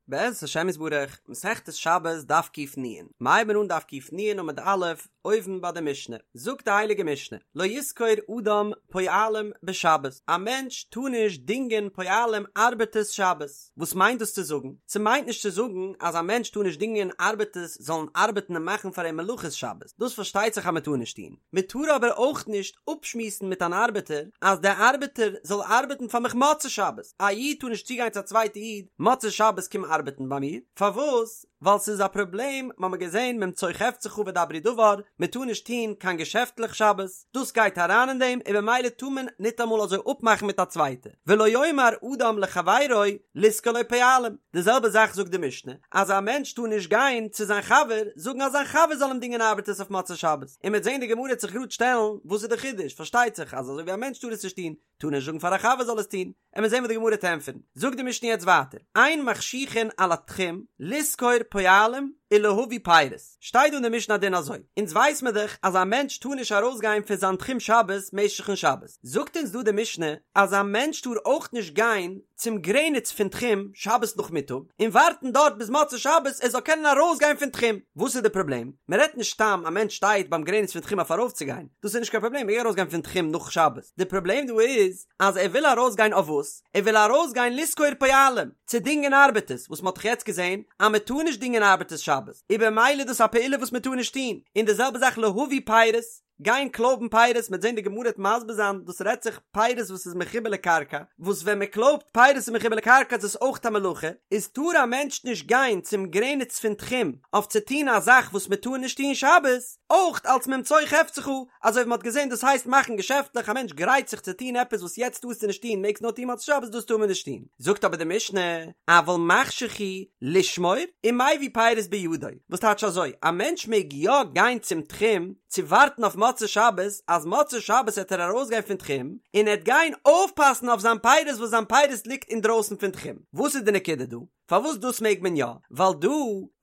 בעזרת השם יתברך, מסכת שבת דף ק"נ, מ'הייבן אן דף ק"נ עמוד א', אויבן ביי די משנה, זאגט די הייליגע משנה, לא ישכור אדם פועלים בשבת, א מענטש טאר נישט דינגען פועלים ארבעטערס שבת, וואס מיינט דאס צו זאגן? ס'מיינט נישט צו זאגן אז א מענטש טאר נישט דינגען ארבעטערס זאלן ארבעטן און מאכן פאר אים מלאכות שבת, דאס פארשטייט זיך אז מ'טאר נישט טון, מ'טאר אבער אויך נישט אפשמועסן מיט אן ארבעטער אז דער ארבעטער זאל ארבעטן פאר מיך מוצאי שבת, א איד טאר נישט צוגיין צו א צווייטע איד מוצאי שבת קום ארבעטן ביי מיר, פארוואס? ווייל ס'איז א פראבלעם, מ'האמיר געזען ממצוא חפצך ודברו דבר, מ'טאר נישט טון קיין געשעפטלעך שבת, דאס גייט אריין אין דעם און במילא טאר מען ניטאמאל אזוי אפמאכן מיט א צווייטע, ולא יאמר אדם לחבירו לשכור לו פועלים, די זעלבע זאך זאגט די משנה, אז א מענטש טאר נישט גיין צו זיין חבר זאגן אז זיין חבר זאל אים דינגען ארבעטערס אויף מוצאי שבת, און מ'וועט זען די גמרא וועט זיך גראד שטעלן וואס איז די חידוש, פארשטייט זיך אז אזוי ווי א מענטש טאר עס נישט טון, טאר נישט זאגן פאר א חבר זאל עס טון, עמיר זען וואס די גמרא וועט ענטפערן, זאגט די משנה יעצט ווייטער, אין מחשיכין על התחום לשכור פועלים ולהביא פירות, שטייט דא אין די משנה א דין אזוי, אונז ווייס מיר דאך אז א מענטש טאר נישט ארויסגיין פון זיין תחום שבת משך'ן שבת, זאגט אונז דא די משנה אז א מענטש טאר אויך נישט גיין צום גרעניץ פון תחום שבת נאכמיטאג און ווארטן דארט ביז מוצאי שבת ער זאל קענען ארויסגיין פון תחום, וואס איז די פראבלעם? מען רעדט נישט סתם א מענטש שטייט ביים גרעניץ פון תחום אויף ארויפצוגיין, דאס איז נישט קיין פראבלעם, מען מעג ארויסגיין פון תחום נאך שבת, די פראבלעם דא איז אז ער וויל ארויסגיין אויף וואס? ער וויל ארויסגיין לשכור פועלים, צו דינגען ארבעטערס, וואס מען האט דאך יעצט געזען אז מען טאר נישט דינגען ארבעטערס שבת, איז במילא איז דאס א פעולה וואס מען טאר נישט טון, און די זעלבע זאך להביא פירות, גיין קלויבן פירות, מ'עט זען די גמרא וועט מסביר זיין דאס רעדט זיך פירות וואס איז מחובר לקרקע, וואס ווען מען קלויבט פירות איז מחובר לקרקע איז עס אויך א מלאכה, איז טאר א מענטש נישט גיין צום גרעניץ פון תחום אויף צו טון א זאך וואס מען טאר נישט טון שבת, אויך אלס ממצוא חפצך, אזוי ווי מען האט געזען דאס הייסט מאכן געשעפטלעך א מענטש גרייט זיך צו טון עפעס וואס יעצט טארסטו נישט טון מעגסט נאר טון מוצאי שבת דאס טאר מען נישט טון, זאגט אבער די משנה, אבל מחשיך הוא לשמור ומביא פירות בידו, וואס טייטש אזוי, א מענטש מעג יא גיין צום תחום צו ווארטן אויף מוצאי שבת, אז מוצאי שבת העט ער ארויסגיין פון תחום, און ער העט גיין אויפפאסן אויף זיין פירות וואס זיין פירות ליגט אינדרויסן פון תחום. וואס איז די נקודה דא? פארוואס דאס מעג מען יא? ווייל דא,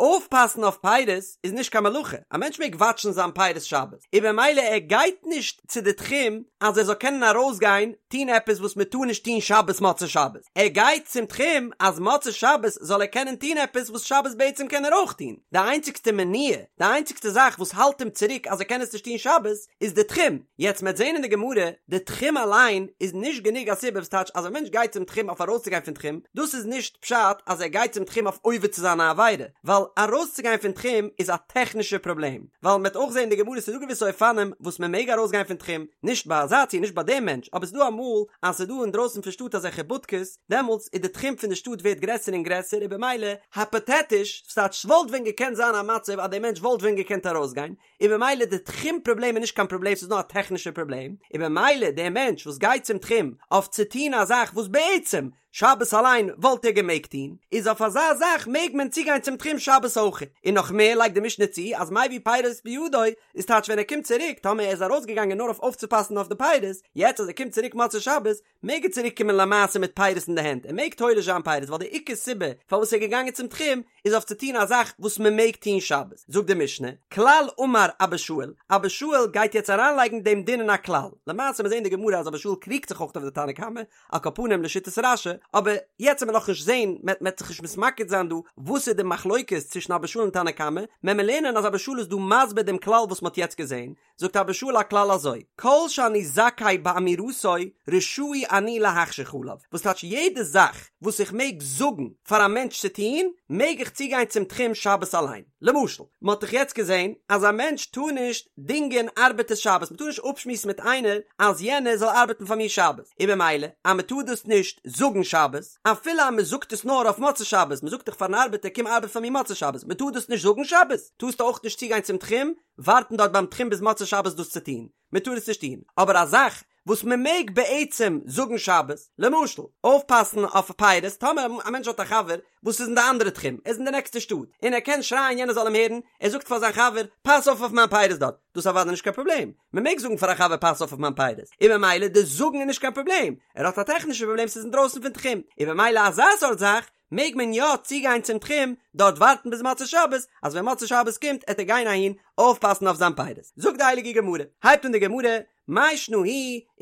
אויפפאסן אויף פירות איז נישט קיין מלאכה, א מענטש מעג וואטשן זיין פירות שבת, און במילא ער גייט נישט צו די תחום אז ער זאל קענען ארויסגיין טון עפעס וואס מען טאר נישט טון שבת מוצאי שבת, ער גייט צום תחום אז מוצאי שבת זאל ער קענען טון עפעס וואס שבת בעצם קען ער אויך טון, די איינציגסטע מניעה, די איינציגסטע זאך וואס האלט אים צוריק אז ער קען עס נישט טון שבת, איז די תחום, יעצט מ'עט זען אין די גמרא, די תחום אליין איז נישט גענוג א סיבה וואס טייטש אז א מענטש גייט צום תחום אויף ארויסצוגיין פון תחום, דאס איז נישט פשט אז ער גייט צום תחום אויף עובר צו זיין א עבירה, ווייל ארויסצוגיין פון תחום איז א טעכנישע פראבלעם, ווייל מ'עט אויך זען אין די גמרא ס'איז דא געוויסע אופנים וואס מ'מעג ארויסגיין פון תחום, נישט ביי אזא ציור נישט ביי דעם מענטש, אבער ס'איז דא אמאל אז ס'איז דא אינדרויסן פון שטאט אזעלכע בודקעס, דעמאלטס איז די תחום פון די שטאט ווערט גרעסער און גרעסער און במילא, היפאטעטיש, ס'טייטש ס'וואלט ווען געקענט זיין א מצב אז דער מענטש וואלט ווען געקענט ארויסגיין, און במילא די תחום פראבלעם איז נישט קיין פראבלעם ס'איז נאר א טעכנישע פראבלעם, און במילא דער מענטש וואס גייט צום תחום אויף צו טון א זאך וואס בעצם שבת אליין וואלט ער געמעגט טון, איז אויף אזא זאך מעג מען צוגיין צום תחום שבת אויך. און נאך מער לייגט די משנה צו אז מביא פירות בידו איז טייטש ווען ער קומט צוריק טאמער ער איז ארויסגעגאנגען נאר אויף אויפצופאסן אויף די פירות, יעצט אז ער קומט צוריק מוצאי שבת מעג ער צוריק קומען למעשה מיט פירות אין די הענט, ער מעג תולש זיין פירות ווייל די עיקר סיבה פארוואס ער איז געגאנגען צום תחום איז אויף צו טון א זאך וואס מען מעג טון שבת, זאגט די משנה, כלל אמר אבא שאול, אבא שאול גייט יעצט אריינלייגן דעם דין אין א כלל, למעשה מיר זעהן אין די גמרא אז אבא שאול קריגט זיך אויך אויף די תנא קמא, על כל פנים לשיטת רש"י, אבער יעצט וועט מען נאכנישט זעהן, מען וועט זיך נישט מתמקד זיין דא וואס איז די מחלוקת צווישן אבא שאול און תנא קמא, מען מען לערנען אז אבא שאול איז דא מסביר דעם כלל וואס מען האט יעצט געזעהן, זאגט אבא שאול א כלל אזוי, כל שאני זכאי באמירתו רשאי אני להחשיך עליו, וואס טייטש יעדע זאך וואס איך מעג זאגן פאר א מענטש צו טון, מעג איך צוגיין צום תחום שבת אליין. למשל, מען האט דאך יעצט געזען אז א מענטש טאר נישט דינגען ארבעטערס שבת, מען טאר נישט אפשמועסן מיט איינער אז יענער זאל ארבעטן פאר מיר שבת, און במילא אז מען טאר דאס נישט זאגן שבת, אפילו אז מען זאגט עס נאר אויף מוצאי שבת, מען זאגט דאך פארן ארבעטער קום ארבעט פאר מיר מוצאי שבת, מען טאר דאס נישט זאגן שבת, טארסטו אויך נישט צוגיין צום תחום, ווארטן דארט ביים תחום ביז מוצאי שבת דאס צו טון, מען טאר עס נישט טון, אבער א זאך וואס מען מעג בעצם זאגן שבת, למשל, אויפפאסן אויף פירות, טאמער א מענטש האט א חבר וואס איז אין די אנדערע תחום, ער איז אין די נעקסטע שטאט, און ער קען שרייען יענער זאל אים הערן, ער זאגט פאר זיין חבר, פאס אויף אויף מיין פירות דארט, דאס איז אוודאי נישט קיין פראבלעם, מען מעג זאגן פאר א חבר פאס אויף אויף מיין פירות, און במילא די זאגן איז נישט קיין פראבלעם, ער האט א טעכנישע פראבלעם ס'איז אינדרויסן פון תחום, און במילא אזא סארט זאך מעג מען יא צוגיין צום תחום דארט ווארטן ביז מוצאי שבת, אז ווען מוצאי שבת קומט עט ער גיין אהין אויפפאסן אויף זיין פירות. זאגט די הייליגע גמרא, הייבט אן די גמרא, מאי שנא הוא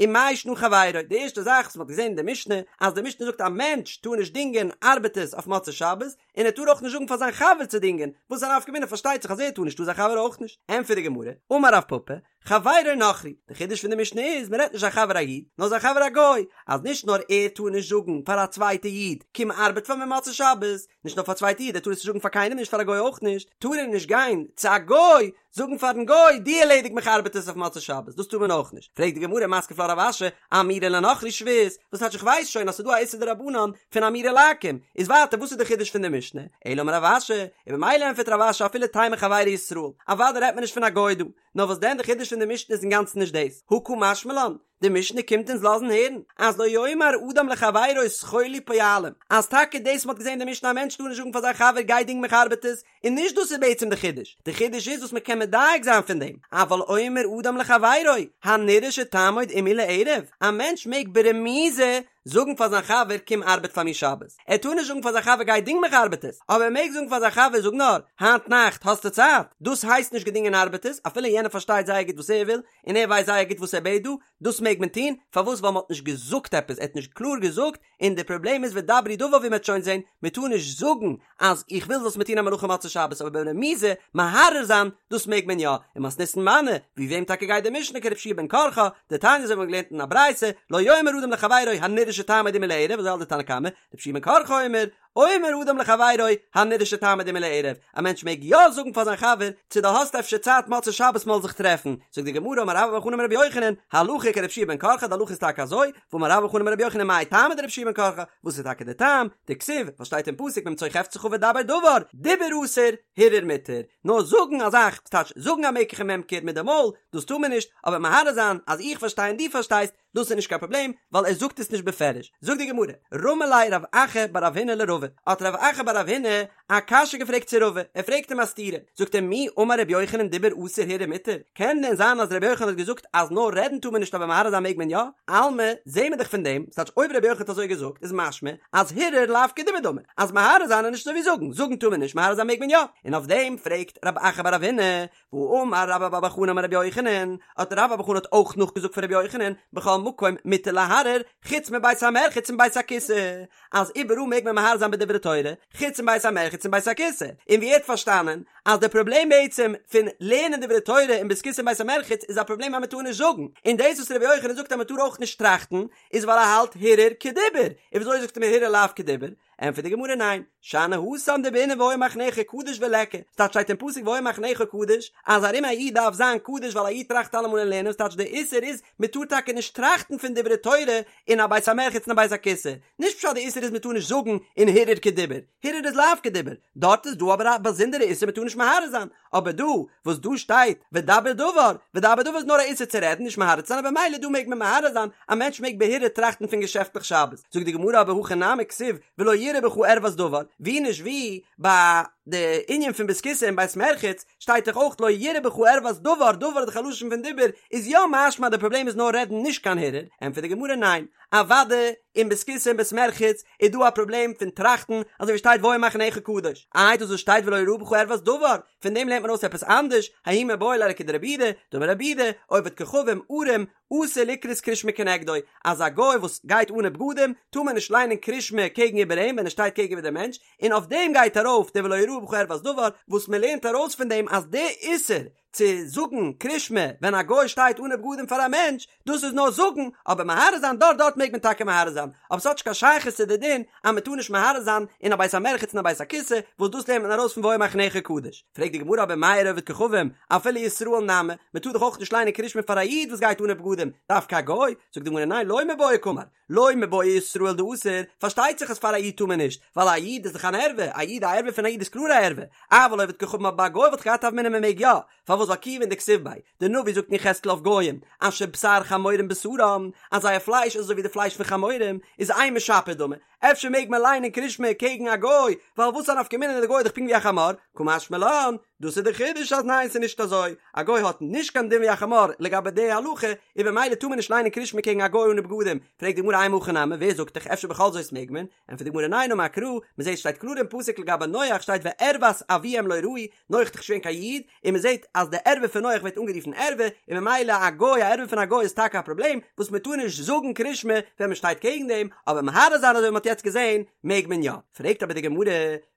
ומאי שנא חברו, די ערשטע זאך וואס מען האט געזען אין די משנה, אז די משנה זאגט א מענטש טאר נישט דינגען ארבעטערס אויף מוצאי שבת, און ער טאר אויך נישט זאגן פאר זיין חבר צו דינגען, וואס איז א נפקא מינה פארשטייט זיך אז ער טאר נישט טאר זיין חבר אויך נישט, ענטפערט די גמרא, אמר רב פפא, חברו נכרי, די חידוש פון די משנה איז מען רעדט נישט זיין חבר א איד, נאר זיין חבר א גוי, אז נישט נאר ער טאר נישט זאגן פאר א צווייטע איד קום ארבעט פאר מיר מוצאי שבת, נישט נאר פאר א צווייטע איד, ער טאר עס נישט זאגן פאר קיינעם נישט פאר א גוי אויך נישט, טאר ער נישט גיין צו א גוי זאגן פארן גוי דו ערלעדיג מיך ארבעטערס אויף מוצאי שבת, דאס טאר מען אויך נישט, פרעגט די גמרא מתקיף לה רב אשי, אמירה לנכרי שבות, וואס טייטש איך ווייס שוין אז ס'איז דא א איסור דרבנן פון אמירה לעכו"ם, איז ווייטער וואס איז די חידוש פון די משנה, אלא אמר רב אשי, און במילא ענטפערט רב אשי אפילו תימא חברו ישראל, אוודאי רעדט מען נישט פון א גוי דא, נאר וואס דען די חידוש פון די משנה איז אינגאנצן נישט דאס, הא קא משמע לן, די משנה קומט אונז לאזן הערן אז לא יאמר אדם לחבירו שכור לי פועלים, אז טאקע דאס מ'האט געזען אין די משנה א מענטש טאר נישט זאגן פאר זיין חבר גיי דינג מיך ארבעטערס, און נישט דאס איז בעצם די חידוש, די חידוש איז וואס מ'קען מדייק זיין פון דעם, אבל אומר אדם לחבירו הנראה שתעמוד עמי לערב, א מענטש מעג ברמיזה זאגן פאר זיין חבר קום ארבעט פאר מיר שבת, ער טאר נישט זאגן פאר זיין חבר גיי דינג מיך ארבעטערס, אבער ער מעג זאגן פאר זיין חבר זאג נאר, היינט נאכט האסטו צייט? דאס הייסט נישט געדינגען ארבעטערס, אפילו יענער פארשטייט זייער גוט וואס ער וויל, און ער ווייסט זייער גוט וואס ער בעט דא, דאס מעג מען טון, פארוואס ווייל מען האט נישט געזאגט עפעס, ער האט נישט קלאר געזאגט, און די פראבלעם איז ודברו דבר ווי מען וועט שוין זען, מען טאר נישט זאגן אז איך וויל זאלסט מיר טון א מלאכה מוצאי שבת אבער ברמיזה מהרהר זיין דאס מעג מען יא, ומתניתין מני, ווי וועם טאקע גייט די משנה כרבי יהושע בן קרחה, דתניא אזוי ווי מ'האט געלערנט אין א ברייתא, לא יאמר אדם לחבירו הנראה שתעמוד עמי לערב אזוי האלט די תנא קמא, רבי יהושע בן קרחה אומר, אומר אדם לחבירו הנראה שתעמוד עמי לערב, א מענטש מעג יא זאגן פאר זיין חבר, צו דו האסט אפשר צייט מוצאי שבת מ'זאל זיך טרעפן, זאגט די גמרא אמר רבה בר חנה אמר רבי יוחנן, הלכה כרבי יהושע בן קרחה די הלכה איז טאקע אזוי, ואמר רבה בר חנה אמר רבי יוחנן מאי טעמא דרבי יהושע בן קרחה, וואס איז טאקע די טעם, דכתיב, וואס שטייט אין פסוק ממצוא חפצך ודבר דבר, דיבור אסור, הרהור מותר, נאר זאגן א זאך, ס'טייטש זאגן א מקח וממכר מיט די מויל, דאס טאר מען נישט, אבער מהרהר זיין אז איך פארשטיי און דו פארשטייסט, דאס איז נישט קיין פראבלעם, ווייל ער זאגט עס נישט בפירוש. זאגט די גמרא, רמי ליה רב אחא בר רב הונא לרבא, האט רב אחא בר רב הונא א קשיא געפרעגט צו רבא, ער פרעגט אים א סתירה, זאגט ער מי אמר רבי יוחנן דיבור אסור הרהור מותר, קען דען זיין אז רבי יוחנן האט געזאגט אז נאר רעדן טאר מען נישט אבער מהרהר זיין מעג מען יא? אלמא, זעהן מיר דאך פון דעם, ס'טייטש אויב רבי יוחנן האט אזוי געזאגט איז משמע אז הרהור לאו כדיבור דמי, אז מהרהר זיין איז נישט אזוי ווי זאגן, זאגן טאר מען נישט מהרהר זיין מעג מען יא, און אויף דעם פרעגט רב אחא בר רב הונא, והאמר רבה בר בר חנה אמר רבי יוחנן, האט רבה בר בר חנה האט אויך נאכגעזאגט פון רבי יוחנן, בכל מקום מותר להרהר, חוץ מבית המרחץ און בית הכסא, אז איבעראל מעג מען מהרהר זיין בדברי תורה, חוץ מבית המרחץ און בית הכסא, און ווי ער האט פארשטאנען אז די פראבלעם בעצם פון לערנען דברי תורה אין בית כסא און בית המרחץ איז א פראבלעם אז מען טאר נישט זאגן, און דאס וואס רבי יוחנן זאגט אז מען טאר אויך נישט טראכטן, איז ווייל ער האלט הרהור כדיבור, און וויאזוי זאגסטו מיר הרהור לאו כדיבור? ענטפערט די גמרא ניין, שאני התם דבעינן והיה מחניך קדוש וליכא, ס'טייטש שטייט אין פסוק והיה מחניך קדוש, אז ארום א איד דארף זיין קדוש ווייל א איד טראכט אלעמאל אין לערנען, ס'טייטש די איסור איז מען טאר טאקע נישט טראכטן פון דברי תורה אין א בית המרחץ און א בית הכסא, נישט פשט די איסור איז מען טאר נישט זאגן און הרהור כדיבור, הרהור איז לאו כדיבור, דארט איז דא אבער א באזונדערע איסור מען טאר נישט מהרהר זיין, אבער דא וואס דא שטייט ודבר דבר, ודבר דבר איז נאר א איסור צו רעדן נישט מהרהר צו זיין אבער ממילא דא מעג מען מהרהר זיין, א מענטש מעג בהרהור טראכטן פון געשעפטליך שבת, זאגט די גמרא אבער הכא נמי כתיב ולא יראה בך ערות דבר, ווי נישט ווי ביי די ענין פון בית כסא און בית מרחץ שטייט דאך אויך לא יראה בך ערות דבר, דבר איז דאך א לשון פון דיבור, איז יא משמע די פראבלעם איז נאר רעדן נישט קיין הרהור, ענטפערט די גמרא ניין, אוודאי אין בית כסא און בית מרחץ איז דא א פראבלעם פון טראכטן, אזוי ווי שטייט והיה מחניך קדוש, איי דאס וואס שטייט ולא יראה בך ערות דבר, פון דעם לערנט מען אויס עפעס אנדערש, ההוא מיבעי ליה לכדרבי יהודה, דאמר רבי יהודה, עובד כוכבים, ערום, אסור לקרות קריאת שמע כנגדו, אז א גוי וואס גייט אנע בגדים, טאר מען נישט ליינען קריאת שמע קעגן איבער אים ווען ער שטייט קעגן איבער דעם מענטש, און אויף דעם גייט ארויף די ולא יראה בך ערות דבר, וואס מען לערנט ארויס פון דעם אז די איסור צו זאגן קרישמע ווען א גוי שטייט אנע בגדים פאר א מענטש, דאס איז נאר זאגן, אבער מהרהר זיין דארט דארט מעג מען טאקע מהרהר זיין, אבער ס'האט נישט קיין שייכות צו די דין אז מען טאר נישט מהרהר זיין אין א בית המרחץ און א בית הכסא, וואס דאס לערנט מען ארויס פון והיה מחניך קדוש. פרעגט די גמרא אבער מאי איריא עובד כוכבים, אפילו ישראל נמי, מען טאר דאך אויך נישט ליינען קרישמע פאר א איד וואס גייט אנע בגדים, דווקא א גוי? זאגט די גמרא ניין לא מיבעיא קאמר, לא מיבעיא ישראל דאסור, פארשטייט זיך אז פאר א איד טאר מען נישט, ווייל א איד איז דאך אן ערווה, א איד א ערווה פון א איד איז קלאר א ערווה, אבל עובד כוכבים אבער ביי א גוי וואלט איך געהאט א הוה אמינא מען מעג יא, פארוואס ווייל כיוון דכתיב ביה, די נביא זאגט אין יחזקאל אויף גוים, אשר בשר חמורים בשרם, אז זייער פלייש איז אזוי ווי די פלייש פון חמורים, איז אימא שפיר דמי, אפשר מעג מען ליינען קרישמע קעגן א גוי, ווייל וואס א נפקא מינה די גוי איז דאך פונקט ווי א חמור, קא משמע לן, דאס איז די חידוש אז ניין ס'איז נישט אזוי, א גוי האט נישט קיין דין ווי א חמור לגבי די הלכה, און במילא טאר מען נישט ליינען קרישמע קעגן א גוי אנע בגדים, פרעגט די גמרא אימא הכי נמי, ווער זאגט דיך אפשר בכל זאת מעג מען, ענטפערט די גמרא ניין אמר קרא, מ'זעט שטייט קלאר אין פסוק לגבי נח שטייט וערות אביהם לא ראו, נח איז דאך נישט געווען קיין איד, און מ'זעט אז די ערווה פון נח ווערט אנגערופן ערווה, און ממילא א גוי א ערווה פון א גוי איז טאקע א פראבלעם, וואס מ'טאר נישט זאגן קרישמע ווען מ'שטייט קעגן דעם, אבער מהרהר זיין אזוי ווי מ'האט יעצט געזען מעג מען יא. פרעגט אבער די גמרא.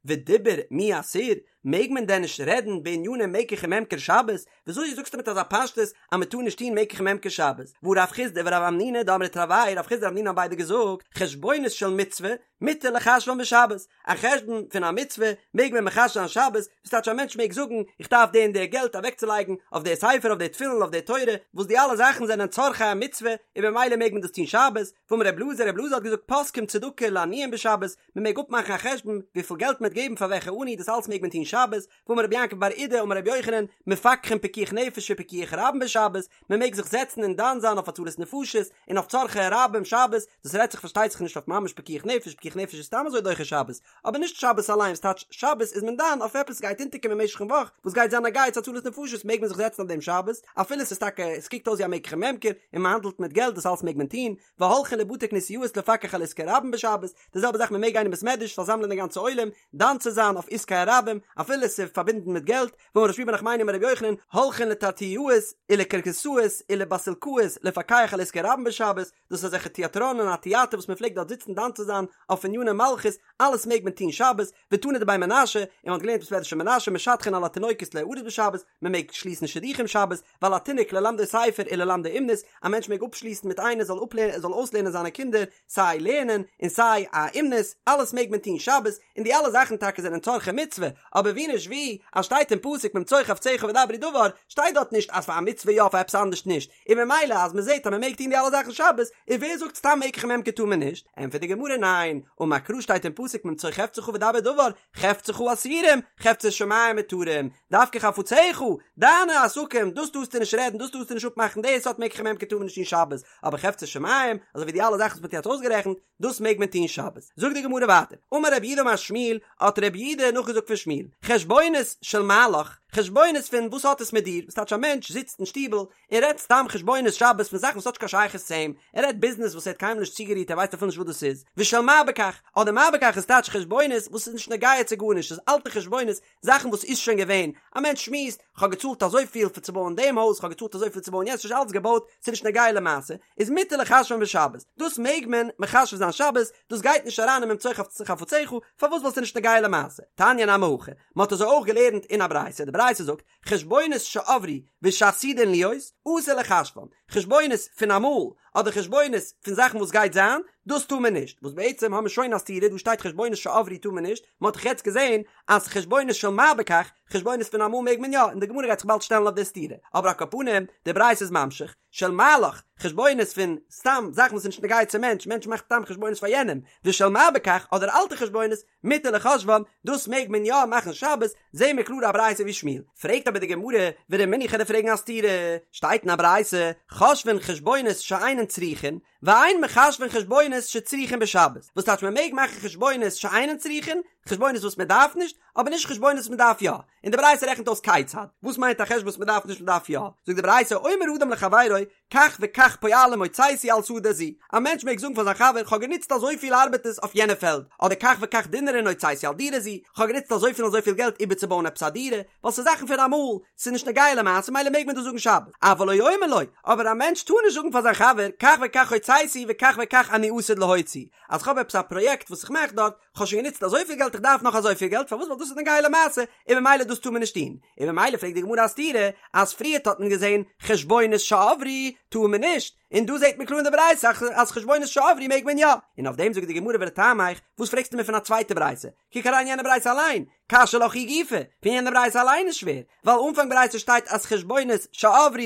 ודיבור מי אסיר, מעג מען דען נישט רעדן בעניני מקח וממכר שבת? וויאזוי זאגסטו מיט אזא פשטות אז מען טאר נישט טון מקח וממכר שבת? והא רב חסדא ורב המנונא דאמרי תרוייהו, רב חסדא און רב המנונא האבן ביידע געזאגט, חשבונות של מצוה מותר לחשבן בשבת, א חשבון פון א מצוה מעג מען מחשב זיין שבת, וואס טייטש א מענטש מעג זאגן איך דארף די און די געלט אוועקצולייגן אויף די ספר אויף די תפילין אויף די תורה, וואס די אלע זאכן זענען צרכי המצוה און במילא מעג מען דאס טון שבת, ואמר רב אלעזר, רב אלעזר האט געזאגט פוסקים צדקה לעניים בשבת, מען מעג אפמאכן א חשבון וויפיל געלט מען וועט געבן פאר וועלכע עני, דאס אלץ מעג מען טון שבת, ואמר רבי יעקב בר אידי אמר רבי יוחנן, מפקחין פיקוח נפש ופיקוח רבים בשבת, מען מעג זיך זעצן און דן זיין אויף הצלת נפשות און אויף צרכי רבים שבת, דאס רעדט זיך פארשטייט זיך נישט אויף ממש פיקוח נפש, פיקוח נפש איז סתם אזוי דוחה שבת, אבער נישט שבת אליין, וואס טייטש שבת איז מען דן אויף עפעס גייט אונטערקומען משך'ן וואך וואס גייט זיין נוגע צו הצלת נפשות מעג מען זיך זעצן אויף דעם שבת, אפילו ס'איז טאקע עס קוקט אויס ווי א מקח וממכר און מען האנדלט מיט געלט דאס אלס מעג מען טון, והולכין לבתי כנסיות לפקח על עסקי רבים בשבת, די זעלבע זאך מען מעג גיין אין בית מדרש פארזאמלען די גאנצע עולם דן צו זיין אויף עסקי הרבים אפילו עס איז פארבינדן מיט געלט, ואמר רב שמואל בר נחמני אמר רבי יוחנן, הולכין לתרטיאות ולקרקסאות ולבסילקאות לפקח על עסקי רבים בשבת, דאס איז אזעלכע טיאטראנען א טיאטער וואס מען פלעגט דארט זיצן דן צו זיין אויף עניני מלכות, אלעס מעג מען טון שבת, ותנא דבי מנשה, און מען האט געלערנט בית מדרש פון מנשה משדכין על התינוקות ליארס בשבת, מען מעג שליסן שידוכים שבת, ועל התינוק ללמדו ספר וללמדו אומנות, א מענטש מעג אפשליסן מיט איינער זאל אפלערנען זאל אויסלערנען זיינע קינדער סיי לערנען און סיי א אומנות, אלעס מעג מען טון שבת, און די אלע זאכן טאקע זענען צרכי מצוה, אבער ווי נישט ווי, אז שטייט אין פסוק ממצוא חפציך ודברו דבר, שטייט דארט נישט אז פאר א מצוה יא פאר עפעס אנדערש נישט, און ממילא אז מען זעט אז מען מעג טון די אלע זאכן שבת, און ווער זאגט סתם מקח וממכר טאר מען נישט, ענטפערט די גמרא ניין, אמר קרא שטייט אין פסוק ממצוא חפצך ודבר דבר, חפציך אסורים, חפצי שמים מותרים, דווקא חפציך, דיינע עסקים, דאס טארסטו נישט רעדן, דאס טארסטו נישט אפמאכן, די סארט מקח וממכר טאר מען נישט טון שבת, אבער חפצי שמים, אזוי ווי די אלע זאכן וואס מען האט יעצט אויסגערעכנט, דאס מעג מען טון שבת. זאגט די גמרא ווייטער, אמר רב יהודה אמר שמואל, האט רב יהודה נאכגעזאגט פון שמואל, חשבונות של מה לך, חשבונות פון וואס האט עס מיט דיר, וואס טייטש א מענטש זיצט אין שטיבל און רעדט סתם חשבונות שבת פון זאכן וואס האט נישט קיין שייכות צו אים, ער רעדט ביזנעס וואס ער האט קיינמאל נישט צוגערירט ער ווייסט אפילו נישט וואס דאס איז, ושל מה בכך, אדער מה בכך איז טייטש חשבונות וואס איז נישט נוגע צו גארנישט, ס'איז אלטע חשבונות, זאכן וואס איז שוין געווען, א מענטש שמועסט, כ'האב געצאלט אזויפיל פאר צו בויען דעם הויז, כ'האב געצאלט אזויפיל צו בויען יענץ, ס'איז שוין אלץ געבויט, ס'איז נישט נוגע למעשה, איז מותר לחשבן בשבת, דאס מעג מען מחשב זיין שבת, דאס גייט נישט אריין אין ממצוא חפציך, פארוואס ווייל ס'איז נישט נוגע למעשה? תניא נמי הכי, מ'האט אזוי אויך געלערנט אין א ברייתא, די ברייתא זאגט, חשבונות שעברו ושעתידין להיות, אסור לחשבן, חשבונות פון אמאל, אדער חשבונות פון זאכן וואס גייט זיין, דאס טאר מען נישט, וואס בעצם האבן מיר שוין א סתירה, דא שטייט חשבונות שעברו טאר מען נישט, מען האט דאך יעצט געזען אז חשבונות של מה בכך, חשבונות פון אמאל מעג מען יא, און די גמרא גייט זיך באלד שטעלן אויף די סתירה, אבער על כל פנים, די ברייתא איז ממשיך, של מה לך, חשבונות פון סתם זאכן וואס איז נישט נוגע צום מענטש, מענטש מאכט סתם חשבונות פאר יענעם, ושל מה בכך, אדער אלטע חשבונות, מותר לחשבן, דאס מעג מען יא מאכן שבת, זעהן מיר קלאר א ברייתא ווי שמואל. פרעגט אבער די גמרא, ורמינהי כ'וועל דיר פרעגן א סתירה, שטייט אין א ברייתא, חושבין חשבונות שאינן צריכין, ואין מחשבין חשבונות שצריכין בשבת, וואס טייטש מען מעג מאכן חשבונות שאינן צריכין, חשבונות וואס מען דארף נישט, אבער נישט חשבונות וואס מען דארף יא, און די ברייתא רעכנט אויס כיצד, וואס מיינט א חשבון וואס מען דארף נישט מען דארף יא, זאגט די ברייתא אומר אדם לחבירו כך וכך פועלים הוצאתי על שדה זו, א מענטש מעג זאגן פאר זיין חבר כ'האב גענוצט אזויפיל ארבעטערס אויף יענע פעלד, אדער כך וכך דינרין הוצאתי על דירה זו, כ'האב גענוצט אזויפיל און אזויפיל געלט איבערצובויען עפעס א דירה, ווייל ס'איז זאכן פון אמאל, ס'איז נישט נוגע למעשה מילא מעג מען דאס זאגן שבת, אבל לא יאמר לו, אבער א מענטש טאר נישט זאגן פאר זיין חבר כך וכך הוצאתי וכך וכך אני עתיד להוציא, אז כ'האב עפעס א פראיעקט וואס איך מאך דארט, כ'האב שוין גענוצט אזויפיל געלט איך דארף נאך אזויפיל געלט, פארוואס ווייל דאס איז נוגע למעשה, און ממילא דאס טאר מען נישט טון, און ממילא פרעגט די גמרא א סתירה, אז פריערט האט מען געזען חשבונות שעברו טאר מען נישט, און דא זעט מען קלאר אין די ברייתא אז חשבונות שעברו מעג מען יא, און אויף דעם זאגט די גמרא ולטעמיך, וואס פרעגסטו מיר פון א צווייטע ברייתא, קוק אריין יענע ברייתא אליין, קשיא לך היא גופא, פון יענע ברייתא אליין איז שווער, ווייל אנפאנג ברייתא שטייט אז חשבונות שעברו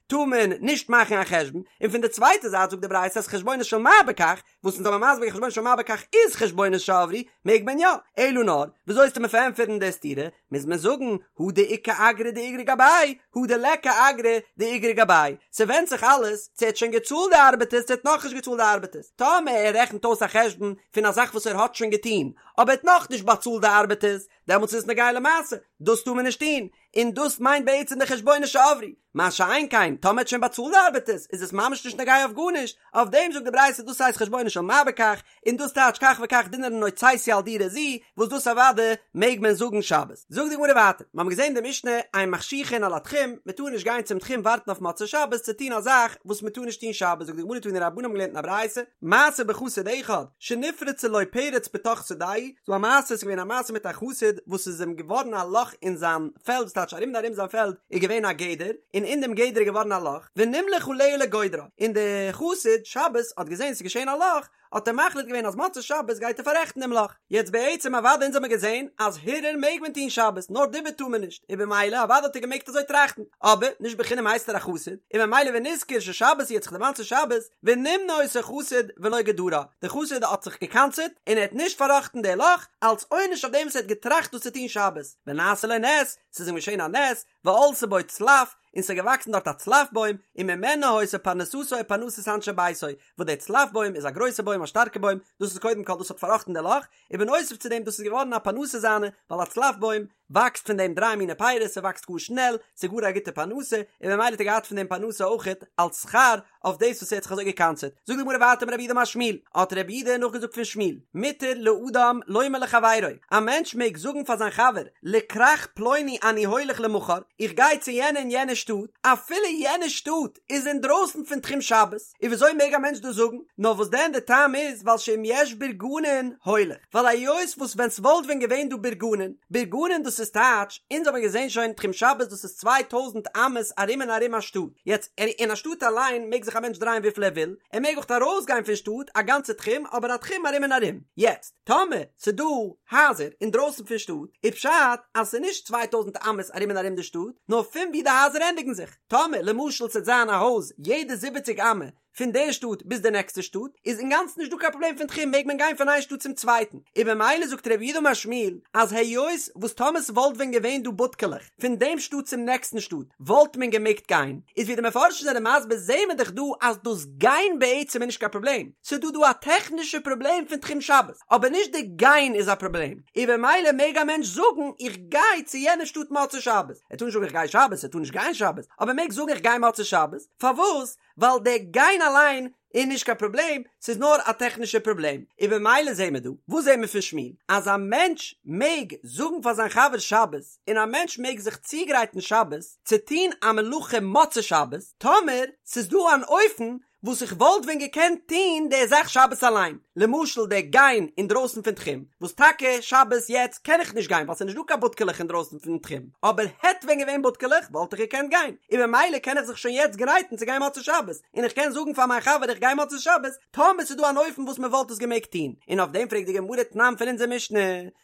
טאר מען נישט מאכן א חשבון, און פון די צווייטע זייט זאגט די ברייתא אז חשבונות של מה בכך, וואס אונז האבן מסביר חשבונות של מה בכך איז חשבונות שעברו, מעג מען יא, אלא נאר, וויאזוי וועסטו מיר פארענטפערן די סתירה, מוז מען זאגן, הא דאיכא אגרא דאיגרי גביה, הא דליכא אגרא דאיגרי גביה, ס'ווענדט זיך אלעס צו ער האט שוין געצאלט די ארבעטערס צו ער האט נאכנישט געצאלט די ארבעטערס, טאמער ער רעכנט אויס א חשבון פון א זאך וואס ער האט שוין געטון, אבער ער האט נאכנישט באצאלט די ארבעטערס, דעמאלטס איז עס נוגע למעשה, דאס טאר מען נישט טון, און דאס מיינט בעצם די חשבונות שעברו, מה שאין כן, טאמער האט שוין באצאלט די ארבעטערס, איז עס ממש נישט נוגע אויף גארנישט, אויף דעם זאגט די ברייתא דאס הייסט חשבונות של מה בכך, און דאס טייטש כך וכך דינרין הוצאתי על דירה זו, וואס דאס אוודאי מעג מען זאגן שבת. זאגט די גמרא ווייטער, מיר האבן געזען די משנה, אין מחשיכין על התחום, מען טאר נישט גיין צום תחום ווארטן אויף מוצאי שבת צו טון א זאך וואס מען טאר נישט טון שבת, זאגט די גמרא תנו רבנן האבן געלערנט אין א ברייתא, מעשה בחסיד אחד, שנפרצה לו פרץ בתוך שדהו. ס'דא א מעשה, ס'איז געווען א מעשה מיט א חסיד וואס איז אים געווארן א לאך אין זיין פעלד, ס'טייטש ארום און ארום זיין פעלד איז געווען א גדר, און אין דעם גדר איז געווארן א לאך, ונמלך עליה לגודרה, און דער חסיד שבת האט געזען ס'איז געשען א לאך, האט ער מחליט געווען אז מוצאי שבת גייט ער פאררעכטן דעם לאך. יעצט בעצם אוודאי אונז האמיר געזען אז הרהור מעג מען טון שבת נאר דיבור טאר מען נישט, און במילא אוודאי האט ער געמעגט אזוי טראכטן, אבער נישט בחינם הייסט ער א חסיד, און במילא ונזכר ששבת היא האט זיך דערמאנט ס'איז שבת, ונמנע אותו חסיד ולא גדרה, דער חסיד האט זיך געקנס'עט און ער האט נישט פארראכטן די לאך, אלס עונש אויף דעם וואס ער האט געטראכט דאס צו טון שבת, ונעשה לו נס, ס'איז אים געשען א נס, ועלתה בו צלף, און ס'איז געוואקסן דארט א צלף בוים, וממנה היתה פרנסתו ופרנסת אנשי ביתו, וואס דער צלף בוים איז א גרויסע בוים א שטארקע בוים, דאס איז קודם כל דאס האט פארראכטן די לאך, און בנוסף צו דעם דאס איז געווארן א פרנסה זיינע, ווייל א צלף בוים וואקסט פון דעם דריי מיני פירות, ס'וואקסט גאר שנעל, ס'איז גאר א גוטע פרנסה, און ממילא האט ער געהאט פון דעם פרנסה אויכעט אלס שכר אויף דאס וואס ער האט זיך אזוי געקנס'עט. זאגט די גמרא ווייטער אמר רב יהודה אמר שמואל, האט רב יהודה נאכגעזאגט פון שמואל, מותר לאדם לומר לחבירו, א מענטש מעג זאגן פאר זיין חבר, לכרך פלוני אני הולך למחר, איך גיי צו יענע און יענע שטאט, אפילו יענע שטאט איז אינדרויסן פון תחום שבת, און וויאזוי מעג א מענטש דאס זאגן? נאר וואס דען די טעם איז ווייל שאם יש בורגנין הולך, ווייל היות וואס ווען ס'וואלט ווען געווען דא בורגנין, בורגנין דאס איז טייטש, אונז האבן געזען שוין תחום שבת דאס איז 2000 אמות ארום און ארום א שטאט, יעצט אין א שטאט אליין מעג זיך א מענטש דרייען וויפיל ער וויל, ער מעג אויך ארויס גיין פון שטאט א גאנצע תחום אבער א תחום ארום און ארום, יעצט טאמער ס'דא הייזער אינדרויסן פון שטאט איז פשט אז ס'איז נישט 2000 אמות ארום און ארום די שטאט נאר פון ווי די הייזער ענדיגן זיך. טאמער למשל ס'עט זיין א הויז יעדע זיבעציג אמה פון די שטאט ביז די נעקסטע שטאט איז אינגאנצן נישט דא קיין פראבלעם פון תחום מעג מען גיין פון איין שטאט צום צווייטן און במילא זאגט רב יהודה אמר שמואל אז היות וואס טאמער ס'וואלט ווען געווען דא בודקעלעך פון דעם שטאט צום נעקסטן שטאט וואלט מען געמעגט גיין איז ווי די מפרשים זענען מסביר זעהן מיר דאך דא אז דאס גיין בעצם איז נישט קיין פראבלעם ס'איז דא דא א טעכנישע פראבלעם פון תחום שבת אבער נישט די גיין איז א פראבלעם און במילא מעג א מענטש זאגן איך גיי צו יענע שטאט מוצאי שבת ער טאר נישט זאגן איך גיי שבת, ער טאר נישט גיין שבת, אבער ער מעג זאגן איך גיי מוצאי שבת, פארוואס? ווייל דער גיין אליין איז נישט קיין פראבלעם, ס'איז נאר א טעכנישע פראבלעם, און במילא זעהן מיר דא, וואס זעהן מיר פון שמואל? אז א מענטש מעג זאגן פאר זיין חבר שבת, און א מענטש מעג זיך צוגרייטן שבת צו טון א מלאכה מוצאי שבת, טאמער ס'איז דא אן אופן וואס איך וואלט ווען געקענט טוהן די זאך שבת אליין, למשל די גיין אינדרויסן פון תחום, וואס טאקע שבת יעצט קען איך נישט גיין ווייל ס'איז נישט דא קיין בודקעלעך אינדרויסן פון תחום, אבער העט ווען געווען בודקעלעך וואלט איך געקענט גיין, און ממילא קען איך זיך שוין יעצט גרייטן צו גיין מוצאי שבת, און איך קען זאגן פאר מיין חבר איך גיי מוצאי שבת, טאמער ס'איז דא אן אופן וואס מ'וואלט עס געמעגט טוהן, און אויף דעם פרעגט די גמרא תנן פון אונזער משנה,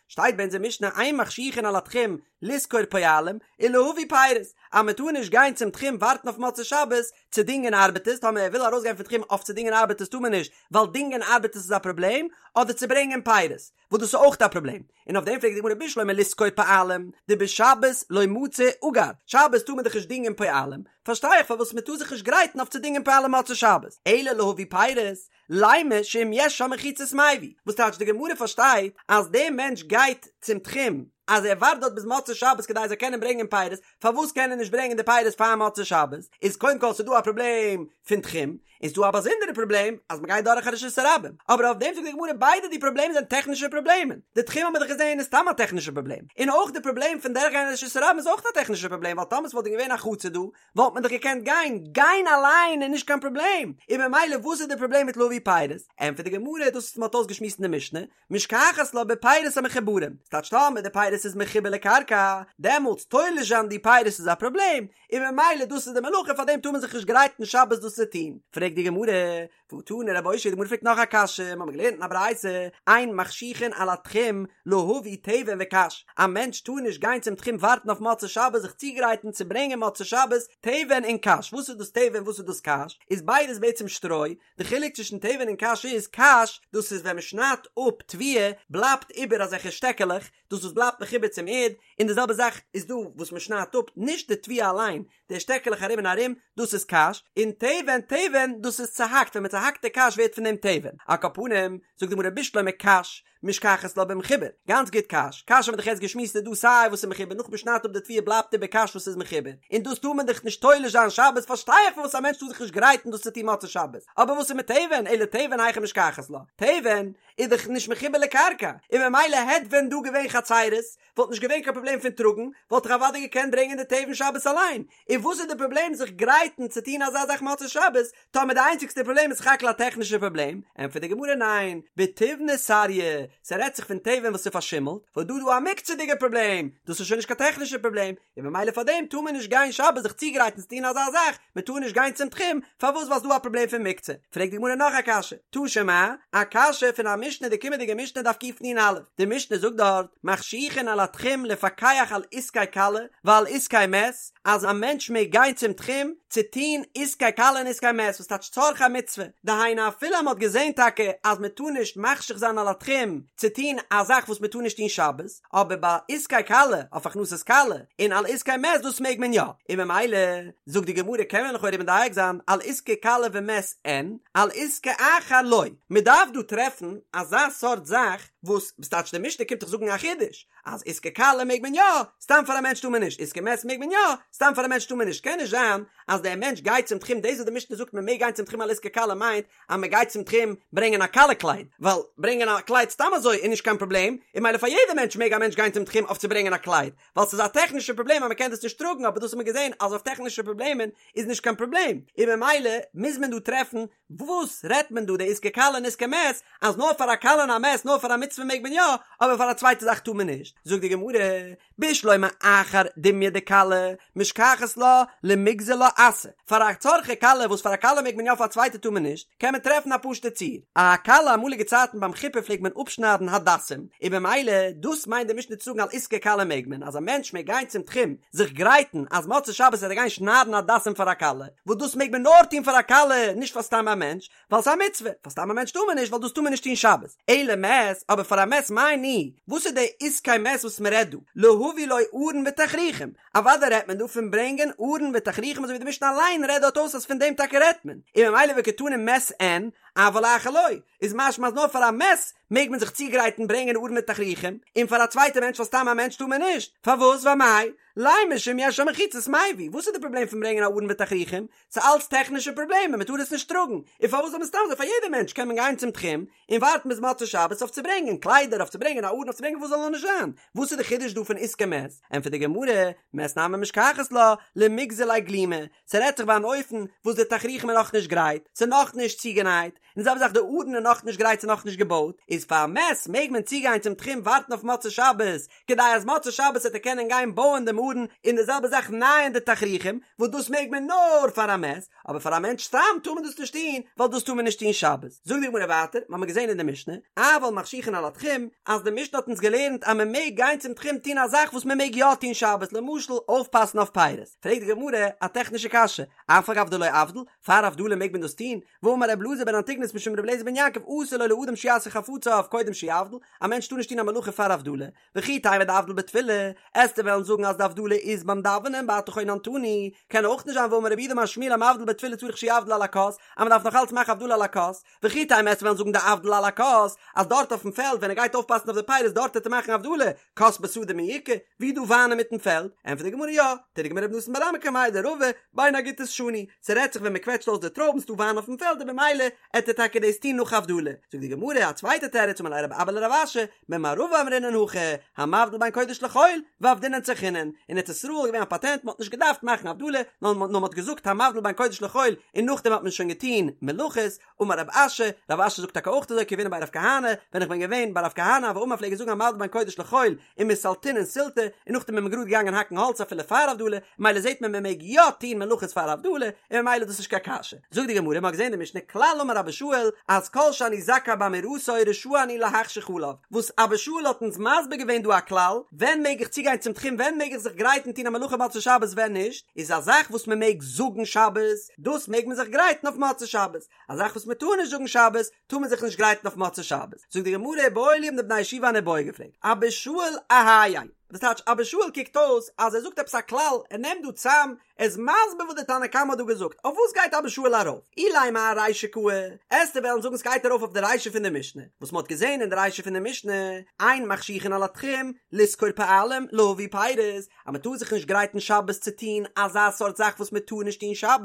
שטייט ביי אונזער משנה אין מחשיכין על התחום לשכור פועלים ולהביא פירות, אז מען טאר נישט גיין צום תחום ווארטן אויף מוצאי שבת צו דינגען ארבעטערס, טאמער ער וויל ארויסגיין פון תחום אויף צו דינגען ארבעטערס טאר מען נישט, ווייל דינגען ארבעטערס איז א פראבלעם, אדער צו ברענגען פירות, וואס דאס איז אויך א פראבלעם, און אויף דעם פרעגט די גמרא בשלמא לשכור פועלים, דבשבת לא מצי אגר, שבת טאר מען דאך נישט דינגען פועלים, פארשטיי איך פארוואס מען טאר זיך נישט גרייטן אויף צו דינגען פועלים מוצאי שבת, אלא להביא פירות, לימא שאם יש שם מחיצות מביא, וואס טייטש די גמרא פארשטייט אז דער מענטש גייט צום תחום אז ער ווארט דארט ביז מוצאי שבת כדי ער זאל קענען ברענגען פירות, פארוואס קען ער נישט ברענגען די פירות פאר מוצאי שבת? איז קודם כל ס'דא א פראבלעם פון תחום, און ס'דא א באזונדערע פראבלעם אז מ'גייט דורך א רשות הרבים, אבער אויף דעם זאגט די גמרא ביידע די פראבלעמען זענען טעכנישע פראבלעמען, די תחום האבן מיר דאך געזען איז סתם א טעכנישע פראבלעם, און אויך די פראבלעם פון דורכגיין א רשות הרבים איז אויך א טעכנישע פראבלעם ווייל טאמער ס'וואלט ווען געווען א חצר דא וואלט מען דאך געקענט גיין, גיין אליין איז נישט קיין פראבלעם, און ממילא וואס איז די פראבלעם מיט להביא פירות? ענטפערט די גמרא, דאס וואס מען האט אויסגעשמועסט אין די משנה, משכחת לה בפירות המחוברים, ס'טייטש טאמער די פירות איז מחובר לקרקע, דעמאלטס תולש זיין די פירות איז א פראבלעם, און ממילא דאס איז די מלאכה פארדעם טאר מען זיך נישט גרייטן שבת דאס צו טון, פרעגט די גמרא, והא תני רב אושעיא, די גמרא פרעגט נאך א קשיא, מ'האמיר געלערנט אין א ברייתא, אין מחשיכין על התחום להביא תבן וקש, א מענטש טאר נישט גיין צום תחום ווארטן אויף מוצאי שבת זיך צוגרייטן צו ברענגען מוצאי שבת תבן און קש, וואס איז דאס תבן וואס איז דאס קש? איז ביידעס בעצם שטרוי, די חילוק צווישן תבן און קש איז, קש דאס איז ווען מ'שניידט אפ תבואה בלייבט איבער אזעלכע שטעקעלעך, דאס וואס בלייבט מחובר צום ערד, און די זעלבע זאך איז דא וואס מ'שניידט אפ נישט די תבואה אליין, די שטעקעלעך ארום און ארום, דאס איז קש, און תבן, תבן, דאס איז צוהאקט, ווען מען צוהאקט די קש ווערט פון דעם תבן. על כל פנים, זאגט די גמרא בשלמא קש, משכחת לה במחובר, גאנץ גוט קש, קש האבן מיר דאך יעצט געשמועסט איז דא סיי וואס איז מחובר נאך מען שניידט אפ די תבואה בלייבט איבער קש וואס איז מחובר, און דאס טאר מען דאך נישט תולש זיין שבת, פארשטיי איך פארוואס א מענטש טאר זיך נישט גרייטן דאס צו טון מוצאי שבת, אבער וואס איז מיט תבן, אלא תבן היכי משכחת לה, תבן איז דאך נישט מחובר לקרקע, און ממילא העט ווען דא געווען חצירות, וואלט נישט געווען קיין פראבלעם פון טראגן, וואלט איך אוודאי געקענט ברענגען די תבן שבת אליין, און וואס איז די פראבלעם זיך גרייטן צו טון אזא זאך מוצאי שבת, טאמער די איינציגסטע פראבלעם איז סך הכל א טעכנישע פראבלעם, ענטפערט די גמרא ניין, בתיבנא סריא, ס'רעדט זיך פון תבן וואס איז פארשימלט, וואס דא איז דא א מוקצה'דיגע פראבלעם, דאס איז שוין נישט קיין טעכנישע פראבלעם, און ממילא פאר דעם טאר מען נישט גיין שבת זיך צוגרייטן צו טון אזא זאך, מען טאר נישט גיין צום תחום, פארוואס ווייל ס'דא א פראבלעם פון מוקצה? פרעגט די גמרא נאך א קשיא, תא שמע, א קשיא פון א משנה די קומענדיגע משנה דף קנ"א, די משנה זאגט דארט, מחשיכין על התחום לפקח על עסקי כלה ועל עסקי מת, אז א מענטש מעג גיין צום תחום צו טון עסקי כלה און עסקי מת, וואס טייטש צרכי מצוה, דהיינו אפילו אז מען האט געזען טאקע אז מען טאר נישט מחשיך זיין על התחום צו טון א זאך וואס מען טאר נישט טון שבת, אבער ביי עסקי כלה, אויף הכנסת כלה, און על עסקי מת דאס מעג מען יא, און ממילא זאגט די גמרא קען מען לכאורה מדייק זיין על עסקי כלה ומת אין, על עסקי אחר לא, מען דארף דא טרעפן אזא סארט זאך וואס, וואס טייטש די משנה קומט דאך זאגן א חידוש, אז עסקי כלה מעג מען יא, סתם פאר א מענטש טאר מען נישט, עסקי מת מעג מען יא, סתם פאר א מענטש טאר מען נישט, קען נישט זיין אז דער מענטש גייט צום תחום, דאס וואס די משנה זאגט מען מעג גיין צום תחום על עסקי כלה מיינט אז מען גייט צום תחום ברענגען א כלה קלייד, ווייל ברענגען א קלייד סתם אזוי איז נישט קיין פראבלעם, און ממילא פאר יעדע מענטש מעג א מענטש גיין צום תחום אויף צו ברענגען א קלייד, ווייל ס'איז א טעכנישע פראבלעם אז מען קען דאס נישט טראגן, אבער דאס האט מען געזען אז אויף טעכנישע פראבלעמען איז נישט קיין פראבלעם, און ממילא מוז מען דא טרעפן וואס רעדט מען דא די עסקי כלה און עסקי מת, אז נאר פאר א כלה און א מת נאר פאר א מצוה מעג מען יא, אבער פאר א צווייטע זאך טאר מען נישט, זאגט די גמרא, בשלמא אחר דומיא דכלה, משכחת לה למיגזר לה אסא, פאר א צרכי כלה וואס פאר א כלה מעג מען יא פאר א צווייטע טאר מען נישט, קען מען טרעפן א פשוטע ציור, א כלה אמאליגע צייטן ביים חופה פלעגט מען אפשניידן הדסים, און במילא דאס מיינט די משנה צו זאגן על עסקי כלה מעג מען, אז א מענטש מעג גיין צום תחום זיך גרייטן אז מוצאי שבת וועט ער גיין שניידן הדסים פאר א כלה, וואס דאס מעג מען נאר טון פאר א כלה נישט פאר סתם א מענטש, ווייל ס'איז א מצוה, פאר סתם א מענטש טאר מען נישט ווייל דאס טאר מען נישט טון שבת, אלא מת, אבער פאר א מת מאי ניהו, וואס איז די עסקי מת וואס מען רעדט דא, להביא לו ארון ותכריכים, אוודאי רעדט מען דא פון ברענגען ארון ותכריכים אזוי ווי די משנה אליין רעדט דארט אויס אז פון דעם טאקע רעדט מען, און ממילא וקתני מת אין, אבל אחר לא, איז משמע אז נאר פאר א מת מעג מען זיך צוגרייטן ברענגען ארון ותכריכים, און פאר א צווייטע מענטש פאר סתם א מענטש טאר מען נישט, פארוואס ואמאי? לימא שאם יש שם מחיצות מביא, וואס איז די פראבלעם פון ברענגען א ארון ותכריכים? ס'איז אלץ טעכנישע פראבלעמען, מ'טאר עס נישט טראגן, און פארוואס זאל מען סתם אזוי פאר יעדע מענטש קען מען גיין צום תחום און ווארטן ביז מוצאי שבת אויף צו ברענגען קליידער אויף צו ברענגען א ארון אויף צו ברענגען וואס זאל נאר נישט זיין, וואס איז די חידוש דא פון עסקי מת? ענטפערט די גמרא, מת נמי משכחת לה, למיגזר ליה גלימא, ס'רעדט זיך ביי אן אופן וואס די תכריכים איז נאכנישט גרייט, ס'איז נאכנישט צוגענייט, און די זעלבע זאך די ארון איז נאכנישט גרייט ס'איז נאכנישט געבויט, איז פאר א מת מעג מען צוגיין צום תחום ווארטן אויף מוצאי שבת, כדי אז מוצאי שבת וועט ער קענען גיין בויען דעם ארון, און די זעלבע זאך נייען די תכריכים, וואס דאס מעג מען נאר פאר א מת, אבער פאר א מענטש סתם טאר מען דאס נישט טון, ווייל דאס טאר מען נישט טון שבת. זאגט די גמרא ווייטער, מ'האמיר געזען אין די משנה, אבל מחשיכין על התחום, אז די משנה האט אונז געלערנט אז מען מעג גיין צום תחום טון א זאך וואס מען מעג יא טון שבת, למשל אויפפאסן אויף פירות. פרעגט די גמרא א טעכנישע קשיא, אף על גב דלא אבדיל, פאר הבדלה מעג מען דאס טון? והאמר ר' אלעזר בן אנטיגנוס משום ר' אליעזר בן יעקב אסור לו לאדם שיעשה חפציו קודם שיבדיל, א מענטש טאר נישט טון א מלאכה פאר הבדלה, וכי תימא דאבדיל בתפילה, עסטו וועלן זאגן אז די הבדלה איז ביים דאווענען ואתה חוננתנו, קען אויך נישט זיין והאמר רב יהודה אמר שמואל המבדיל בתפילה צריך שיבדיל על הכוס, אז מען דארף נאך אלץ מאכן הבדלה על הכוס, וכי תימא עסטו וועלן זאגן דאבדיל על הכוס, אז דארט אויפן פעלד ווען ער גייט אויפפאסן אויף די פירות דארט וועט ער מאכן הבדלה, כוס בשדה מי איכא, ווי דא וויין אינמיטן פעלד? ענטפערט די גמרא יא, תרגמא רב נתן בר אמי קמיה דרבא, בין הגיתות שנו, ס'רעדט זיך ווען מ'קוועטשט אויס די טרויבן ס'דא וויין אויפן פעלד און במילא עט ער טאקע דאס טון נאך הבדלה, זאגט די גמרא א צווייטע תירוץ אמר ליה רב אבא לרב אשי, במערבא אמרינן הכי, המבדיל בין קודש לחול, ועבדינן צרכינן, אין ארץ ישראל איז געווען א פאטענט מ'האט נישט געדארפט מאכן הבדלה, נאר מ'האט געזאגט המבדיל בין קודש לחול און נאכדעם האט מען שוין געטון מלאכות, אמר רב אשי, רב אשי זאגט טאקע אויך אזוי כי הוינן בי רב כהנא, ווען איך בין געווען ביי רב כהנא הוה אמר פלעג ער זאגן המבדיל בין קודש לחול ומסלתינן סילתא, און נאכדעם איז מען גראד געגאנגען האקן האלץ אפילו פאר הבדלה, ממילא זעט מען מען מעג יא טון מלאכות פאר הבדלה, און ממילא איז דאס נישט קיין קשיא. זאגט די גמרא, מען האט געזען אין די משנה כלל אמר אבא שאול אז כל שאני זכאי באמירתו רשאי אני להחשיך עליו, וואס אבא שאול האט אונז מסביר געווען דא א כלל, ווען מעג איך צוגיין צום תחום ווען מעג איך זיך גרייטן טון א מלאכה מוצאי שבת ווען נישט, איז א זאך וואס מען מעג זאגן שבת, דאס מעג מען זיך גרייטן אויף מוצאי שבת, א זאך וואס מען טאר נישט זאגן שבת, טאר מען זיך נישט גרייטן אויף מוצאי שבת. זאגט די גמרא איבעיא להו האבן די בני ישיבה אן איבעיא געפרעגט, אבא שאול אהייא, וואס טייטש אבא שאול קוקט אויס אז ער זאגט עפעס א כלל, ער נעמט דא צאם, ער איז מסביר וואס די תנא קמא האט דא געזאגט, אויף וואס גייט אבא שאול ארויף? אילימא ארישא קאי, עסטו וועלן זאגן ס'גייט ארויף אויף די רישא פון די משנה, וואס מען האט געזען אין די רישא פון די משנה, אין מחשיכין על התחום, לשכור פועלים, להביא פירות, אז מען טאר זיך נישט גרייטן שבת צו טון אזא סארט זאך וואס מען טאר נישט טון שבת,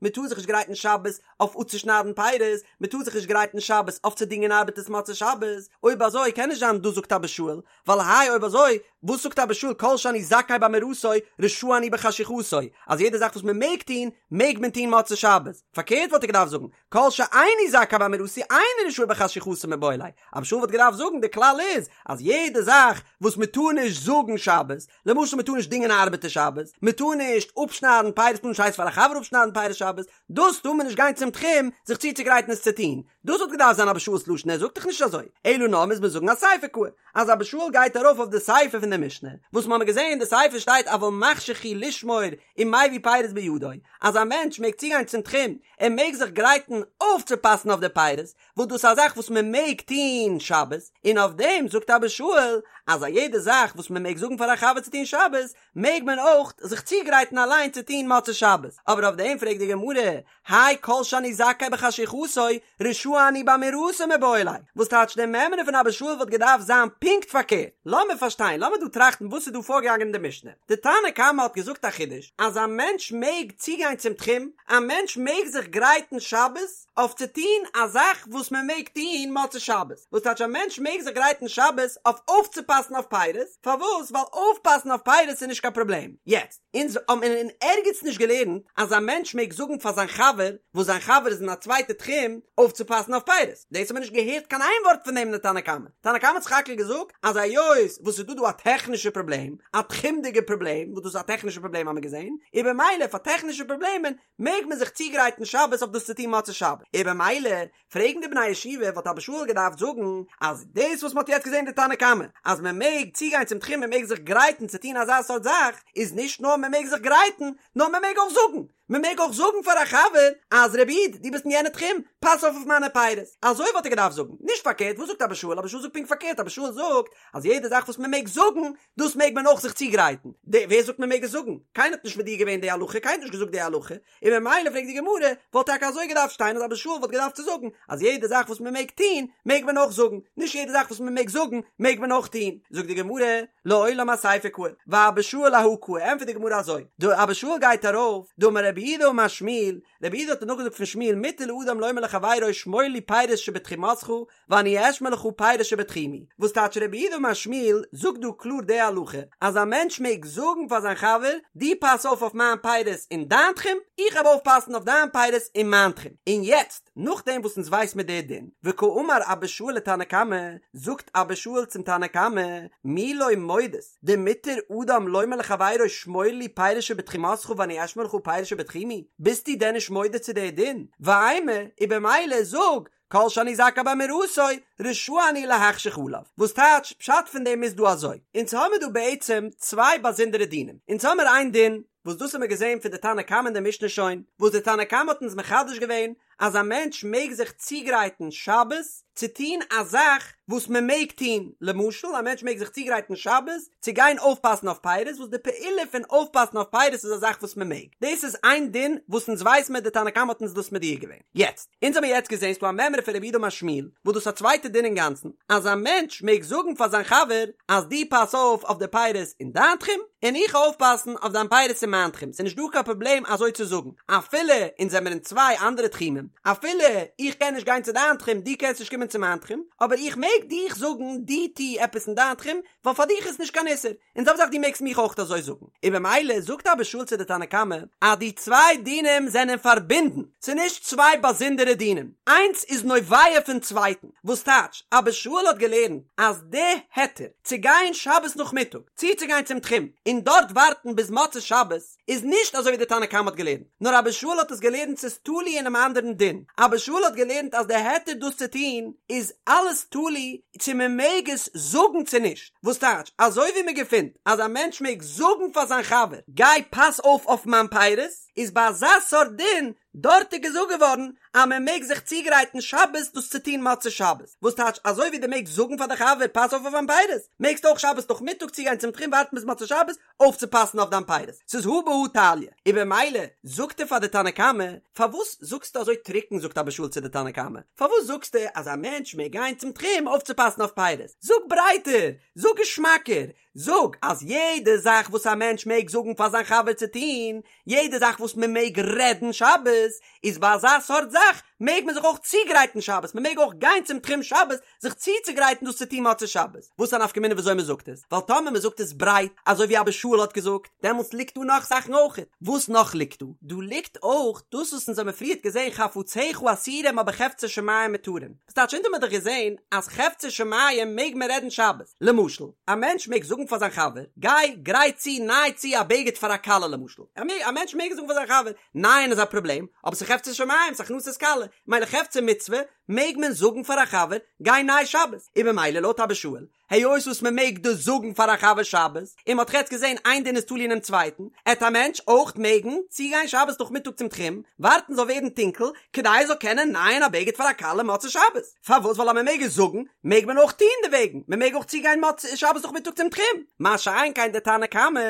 מען טאר זיך נישט גרייטן שבת אויף אפצושניידן פירות, מען טאר זיך נישט גרייטן שבת אויף צו דינגען ארבעטערס מוצאי שבת, אויב אזוי קען נישט זיין דאס זאגט אבא שאול, ווייל האי אויב אזוי וואס זאגט אבא שאול כל שאני זכאי באמירתו רשאי אני בחשיכתו, אז יעדע זאך וואס מען מעג טון מעג מען טון מוצאי שבת, פארקערט וואלט ער געדארפט זאגן. כל שאיני זכאי באמירתו איני רשאי בחשיכתו מיבעי ליה, אבא שאול וואלט געדארפט זאגן די כלל איז אז יעדע זאך וואס מען טאר נישט זאגן שבת, למשל מען טאר נישט דינגען א ארבעטער שבת, מען טאר נישט אפשניידן פירות, מען טאר נישט הייסן פאר א חבר אפשניידן פירות שבת, דאס טאר מען נישט גיין צום תחום זיך צוצוגרייטן עס צו טון, דאס וואלט געדארפט זיין אבא שאול'ס לשון ער זאגט דאך נישט אזוי, אלא נאר מוז מען זאגן אסיפא קאי, אז אבא שאול גייט ארויף אויף די סיפא פון די משנה, וואס מ'האמיר געזען אין די סיפא שטייט אבל מחשיך הוא לשמור ומביא פירות בידו, אז א מענטש מעג צוגיין צום תחום, ער מעג זיך גרייטן אויפצופאסן אויף די פירות, וואס דאס איז א זאך וואס מען מעג טון שבת, און אויף דעם זאגט אבא שאול אז א יעדע זאך וואס מען מעג זאגן פאר א חבר צו טון שבת, מעג מען אויך זיך צוגרייטן אליין צו טון מוצאי שבת, אבער אויף דעם פרעגט די גמרא, האי כל שאני זכאי בחשיכתו, רשאי אני באמירתו מיבעי ליה, וואס טייטש די מימרא פון אבא שאול וואלט געדארפט זיין פונקט פארקערט, לאמיר פארשטיין, לאמיר דא טראכטן וואס איז דא פארגעגאנגען אין די משנה, די תנא קמא האט געזאגט א חידוש, אז א מענטש מעג צוגיין צום תחום, א מענטש מעג זיך גרייטן שבת, אויף צו טון א זאך וואס מען מעג טון מוצאי שבת, וואס טייטש א מענטש מעג זיך גרייטן שבת אויף אויפצופאסן אויף פירות, פארוואס? ווייל אויפפאסן אויף פירות איז נישט קיין פראבלעם. יעצט, אונז האבן אין ערגעץ נישט געלערנט אז א מענטש מעג זאגן פאר זיין חבר וואס זיין חבר איז אין א צווייטע תחום אויפצופאסן אויף פירות, דאס האט מען נישט געהערט קיין איין ווארט פון דעם אין די תנא קמא. תנא קמא האט סך הכל געזאגט אז היות וואס ס'איז דא דא א טעכנישע פראבלעם, א תחומ'דיגע פראבלעם, וואס דאס איז א טעכנישע פראבלעם האבן מיר געזען, און במילא פאר טעכנישע פראבלעמען מעג מען זיך צוגרייטן שבת אויף דאס צו טון מוצאי שבת, און במילא פרעגן די בני הישיבה וואלט אבא שאול געדארפט זאגן אז דאס וואס מען האט יעצט געזען די תנא קמא אז מען מעג צוגיין צום תחום מען מעג זיך גרייטן צו טון אזא סארט זאך איז נישט נאר מען מעג זיך גרייטן נאר מען מעג אויך זאגן, מען מעג אויך זאגן פאר א חבר אז רבי איד דו ביסט אין יענע תחום פאס אויף אויף מיינע פירות, אזוי וואלט ער געדארפט זאגן, נישט פארקערט, וואס זאגט אבא שאול? אבא שאול זאגט פונקט פארקערט, אבא שאול זאגט אז יעדע זאך וואס מען מעג זאגן דאס מעג מען אויך זיך צוגרייטן. די, ווער זאגט מען מעג עס זאגן? קיינער האט נישט מודיע געווען די הלכה, קיינער האט נישט געזאגט די הלכה, און ממילא פרעגט די גמרא, וואלט טאקע אזוי געדארפט שטיין אז אבא שאול וואלט געדארפט צו זאגן אז יעדע זאך וואס מען מעג טון, מעג מען אויך זאגן, נישט יעדע זאך וואס מען מעג זאגן, מעג מען אויך טון. זאגט די גמרא, לעולם אסיפא קאי, ואבא שאול אהא קאי, ענטפערט די גמרא אזוי, די אבא שאול גייט ארויף, דאמר רב יהודה אמר שמואל, רב יהודה האט נאכגעזאגט פון שמואל מותר לאדם לומר לחבירו שמור לי פירות שבתחומך, ואני אשמור לך פירות שבתחומי, וואס טייטש רב יהודה אמר שמואל זאגט דא קלאר די הלכה אז א מענטש מעג זאגן פאר זיין חבר דו פאס אויף אויף מיין פירות אין דיין תחום, איך וועל אויפפאסן אויף דיין פירות אין מיין תחום, און יעצט נאכדעם וואס אונז ווייס מיר די דין, וקאמר אבא שאול לתנא קמא, זאגט אבא שאול צום תנא קמא, מי לא מודית דמותר אדם לומר לחבירו שמור לי פירות שבתחומך ואני אשמור לך פירות שבתחומי, ביסטו דען נישט מודה צו די דין? ואימא, און במילא זאג כל שאני זכאי באמירתו, רשאי אני להחשיך עליו. וואס טייטש, פשט פון דעם איז דא אזוי, אונז האמיר דא בעצם צוויי באזונדערע דינים, אונז האמיר איין דין, וואס דאס האמיר געזען פון די תנא קמא אין די משנה שוין, וואס די תנא קמא האט אונז מחדש געווען, אז א מענטש מעג זיך צוגרייטן שבת צו טון א זאך וואס מען מעג טון, למשל א מענטש מעג זיך צוגרייטן שבת צו גיין אויפפאסן אויף פירות, וואס די פעולה פון אויפפאסן אויף פירות איז א זאך וואס מען מעג, דאס איז איין דין וואס אונז ווייס מיר די תנא קמא האט אונז דאס מודיע געווען. יעצט, אונז האמיר יעצט געזען ס'דא א מימרא פון רב יהודה אמר שמואל, וואס דאס איז א צווייטע דין אינגאנצן, אז א מענטש מעג זאגן פאר זיין חבר אז דו פאס אויף אויף די פירות אין דיין תחום, און איך אויפפאסן אויף דיין פירות אין מיין תחום, ס'איז נישט דא קיין פראבלעם אזוי צו זאגן, אפילו אונז זעמיר אין צוויי אנדערע תחומים, אפילו איך קען נישט גיין צו דיין תחום, דו קענסט נישט קומען צו מיין תחום, אבער איך מעג דיך זאגן דו טו עפעס אין דיין תחום, ווייל פאר דיך איז נישט קיין איסור, און זעלבע זאך דו מעגסט מיך אויך אזוי זאגן, און במילא זאגט אבא שאול צו די תנא קמא אז די צוויי דינים זענען פארבינדן, ס'איז נישט צוויי באזונדערע דינים, איינס איז נובע פון צווייטן, וואס טייטש, אבא שאול האט געלערנט אז די היתר צו גיין שבת נאכמיטאג צוצוגיין צום תחום און דארט ווארטן ביז מוצאי שבת איז נישט אזוי ווי די תנא קמא האט געלערנט, נאר אבא שאול האט עס געלערנט ס'איז תלוי אינעם אנדערן דין, אבא שאול האט געלערנט אז די היתר דאס צו טון איז אלעס תלוי צו מען מעג עס זאגן צו נישט, וואס טייטש אזוי ווי מען געפינט אז א מענטש מעג זאגן פאר זיין חבר גיי פאס אויף אויף מיין פירות, איז ביי אזא סארט דין דארט איז געזאגט געווארן אז מען מעג זיך צוגרייטן שבת דאס צו טון מוצאי שבת, וואס טייטש אזוי ווי דו מעגסט זאגן פאר די חבר פאס אויף אויף מיין פירות, מעגסטו אויך שבת נאכמיטאג צוגיין צום תחום ווארטן ביז מוצאי שבת אויפצופאסן אויף דיין פירות, ס'איז הא בהא תליא, און במילא זאגט ער פאר די תנא קמא, פארוואס זאגסטו אזוי טרוקן זאגט אבא שאול צו די תנא קמא, פארוואס זאגסטו אז א מענטש מעג גיין צום תחום אויפצופאסן אויף פירות, זאג ברייטער, זאג געשמאקער, זאג אז יעדע זאך וואס א מענטש מעג זאגן פאר זיין חבר צו טון, יעדע זאך וואס מען מעג רעדן שבת, איז ביי אזא סארט זאך. מעג מען זיך אויך צוגרייטן שבת, מען מעג אויך גיין צום תחום שבת זיך צוצוגרייטן דאס צו טון מוצאי שבת. וואס איז א נפקא מינה וויאזוי מען זאגט עס? ווייל טאמער מען זאגט עס ברייט, אזוי ווי אבא שאול האט געזאגט, דעמאלטס ליגט דא נאך זאכן אויך. וואס נאך ליגט דא? דא ליגט אויך דאס וואס אונז האבן פריערט געזען חפציך אסורים אבער חפצי שמים מותרים. וואס טייטש אונז האבן מיר דאך געזען אז חפצי שמים מעג מען רעדן שבת. למשל, א מענטש מעג זאגן פאר זיין חבר, גיי גרייט צו ניי צו א בגד פאר א כלה למשל. א מענטש מעג זאגן פאר זיין חבר, נייען איז א פראבלעם, אבער ס'איז חפצי שמים, ס'איז הכנסת כלה, מילא חפצי מצוה, מעג מען זאגן פאר א חבר, גיי ניי שבת. און במילא לויט אבא שאול, היות וואס מען מעג דאס זאגן פאר א חבר שבת, און מען האט יעצט געזען איין דין איז תלוי אינעם צווייטן, עט א מענטש אויך מעגן צוגיין שבת נאכמיטאג צום תחום, ווארטן זאל ווערן טונקל, כדי ער זאל קענען נייען א בגד פאר א כלה מוצאי שבת. פארוואס? ווייל אז מען מעג עס זאגן, מעג מען אויך טון דערוועגן, מען מעג אויך צוגיין מוצאי שבת נאכמיטאג צום תחום. מה שאין כן דער תנא קמא,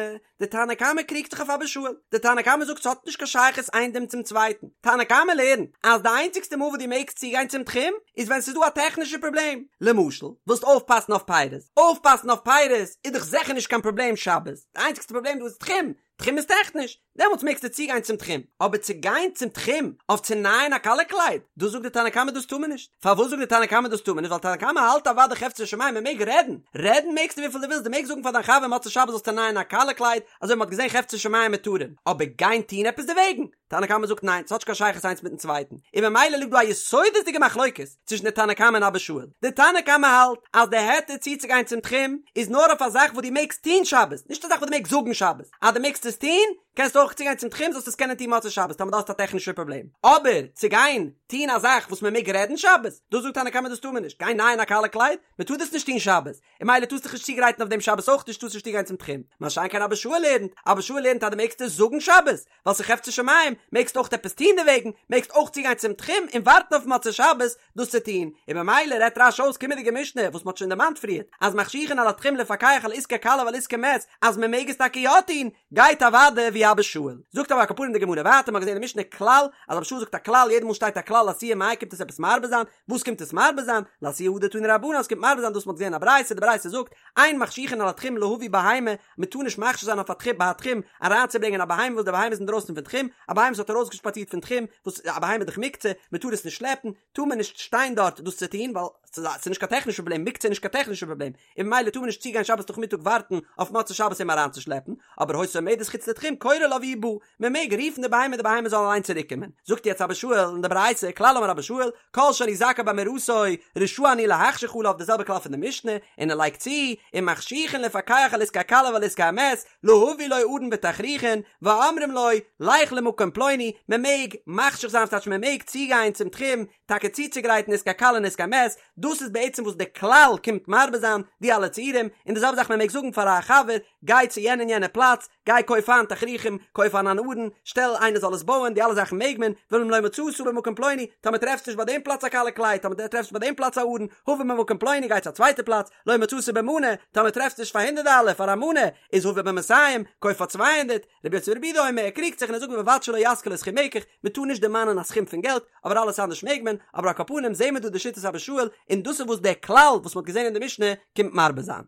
דער תנא קמא קריגט זיך אויף אבא שאול, דער תנא קמא זאגט ס'האט נישט קיין שייכות איין דין צום צווייטן, תנא קמא לערנט אז די איינציגסטע מאל וואס דו מעגסט צוגיין צום תחום איז ווען ס'איז דא א טעכנישע פראבלעם, למשל ווילסט אויפפאסן אויף פירות, אויפפאסן אויף פירות איז דאך זיכער נישט קיין פראבלעם שבת, די איינציגסטע פראבלעם דא איז תחום, תחום איז טעכניש, דעמאלטס מעגסטו צוגיין צום תחום, אבער צו גיין צום תחום אויף צו נייען א כלה קלייד, דאס זאגט די תנא קמא דאס טאר מען נישט, פארוואס זאגט די תנא קמא דאס טאר מען נישט, ווייל תנא קמא האלט אוודאי חפצי שמים מען מעג רעדן, רעדן מעגסטו וויפיל דו ווילסט, דו מעגסט זאגן פאר דיין חבר מוצאי שבת זאלסטו נייען א כלה קלייד, אזוי ווי מען האט געזען חפצי שמים מותרים, אבער גיין טון עפעס דערוועגן? תנא קמא זאגט ניין, ס'האט נישט קיין שייכות איינס מיטן צווייטן, און ממילא ליגט דא א יסודות'דיגע מחלוקת צווישן די תנא קמא און אבא שאול, די תנא קמא האלט אז די היתר צוצוגיין צום תחום איז נאר אויף א זאך וואס דו מעגסט טון שבת, נישט א זאך וואס דו מעגסט זאגן שבת, אז דו מעגסט עס טון, קענסטו אויך צוגיין צום תחום זאלסט עס קענען טון מוצאי שבת טאמער דו האסט א טעכנישע פראבלעם, אבער צו גיין טון א זאך וואס מען מעג רעדן שבת, דאס זאגט תנא קמא דאס טאר מען נישט, גיין נייען א כלה קלייד, מען טאר דאס נישט טון שבת, און ממילא טארסט דיך נישט צוגרייטן אויף דעם שבת אויך נישט טארסט נישט צוגיין צום תחום, מה שאין כן אבא שאול לערנט, אבא שאול לערנט אז דו מעגסט עס זאגן שבת, ווייל ס'איז חפצי שמים, מעגסט אויך עפעס טון דערוועגן, מעגסט אויך צוגיין צום תחום און ווארטן אויף מוצאי שבת דאס צו טון, און ממילא רעדט רש"י אויס קומענדיגע משנה וואס מ'האט שוין דערמאנט פריערט, אז מחשיכין על התחום לפקח על עסקי כלה ועל עסקי מת, אז מ'מעג עס טאקע יא טון, גייט אוודאי ווי אבא שאול. זאגט אבער על כל פנים די גמרא ווייטער, מ'האט געזען אין משנה כלל, אז אבא שאול זאגט א כלל, יעדע מאל שטייט א כלל לאתויי מאי קומט עס עפעס מרבה זיין, וואס קומט עס מרבה זיין? לאתויי הא דתנו רבנן, עס קומט מרבה זיין דאס מ'האט געזען א ברייתא, די ברייתא זאגט, אין מחשיכין על התחום להביא בהמה, מ'טאר נישט מחשיך זיין אויף א תחום ביי א תחום אריינצוברענגען א בהמה וואס די בהמה איז אינדרויסן פון תחום, א בהמה וואס האט ארויסגעשפאצירט פון תחום, וואס א בהמה איז דאך מוקצה, מ'טאר עס נישט שלעפן, טאר מען נישט שטיין דארט דאס צו טון, ווייל ס'איז נישט קיין טעכנישע פראבלעם, מוקצה איז נישט קיין טעכנישע פראבלעם, און ממילא טאר מען נישט צוגיין שבת נאכמיטאג ווארטן אויף מוצאי שבת אים אריינצושלעפן, אבער היתה עומדת חוץ לתחום קורא לה והיא באה, מען מעג רופן די בהמה די בהמה זאל אליין צוריק קומען, זאגט יעצט אבא שאול אין די ברייתא, כלל אמר אבא שאול, כל שאני זכאי באמירתו, רשאי אני להחשיך עליו די זעלבע כלל פון די משנה, און ער לייגט צו, ומחשיכין לפקח על עסקי הכלה ועל עסקי המת, להביא לו ארון ותכריכין, ואומרים לו, לך למקום פלוני, מען מעג מחשיך זיין ס'טייטש מען מעג צוגיין צום תחום, טאקע צוצוגרייטן עסקי כלה און עסקי מת, דאס איז בעצם וואס די כלל קומט מרבה זיין, די אלע ציורים, און די זעלבע זאך מען מעג זאגן פאר א חבר, גיי צו יענע און יענע פלאץ, גיי קויף איין תכריכים, קויף איין אן ארון, שטעל איינער זאל עס בויען, די אלע זאכן מעג מען, ואם לא מצאת במקום פלוני, טאמער טרעפסט נישט ביי דעם פלאץ א כלה קלייד, טאמער טרעפסט ביי דעם פלאץ א ארון, הבא ממקום פלוני גיי צו א צווייטע פלאץ, לא מצאת במנה, טאמער טרעפסט נישט פאר הונדערט דאלער פאר א מנה, איז הבא במאתים, קויף פאר 200, רבי יוסי ברבי יהודה אומר, ער קריגט זיך און ער זאגט ובלבד שלא יזכיר לו סכום מקח, מען טאר נישט דערמאנען א סכום פון געלט, אבער אלעס אנדערש מעג מען, אבער על כל פנים זעהן מיר דא די שיטת אבא שאול, און דאס איז וואס דער כלל וואס מען האט געזעהן אין די משנה קומט מרבה זיין.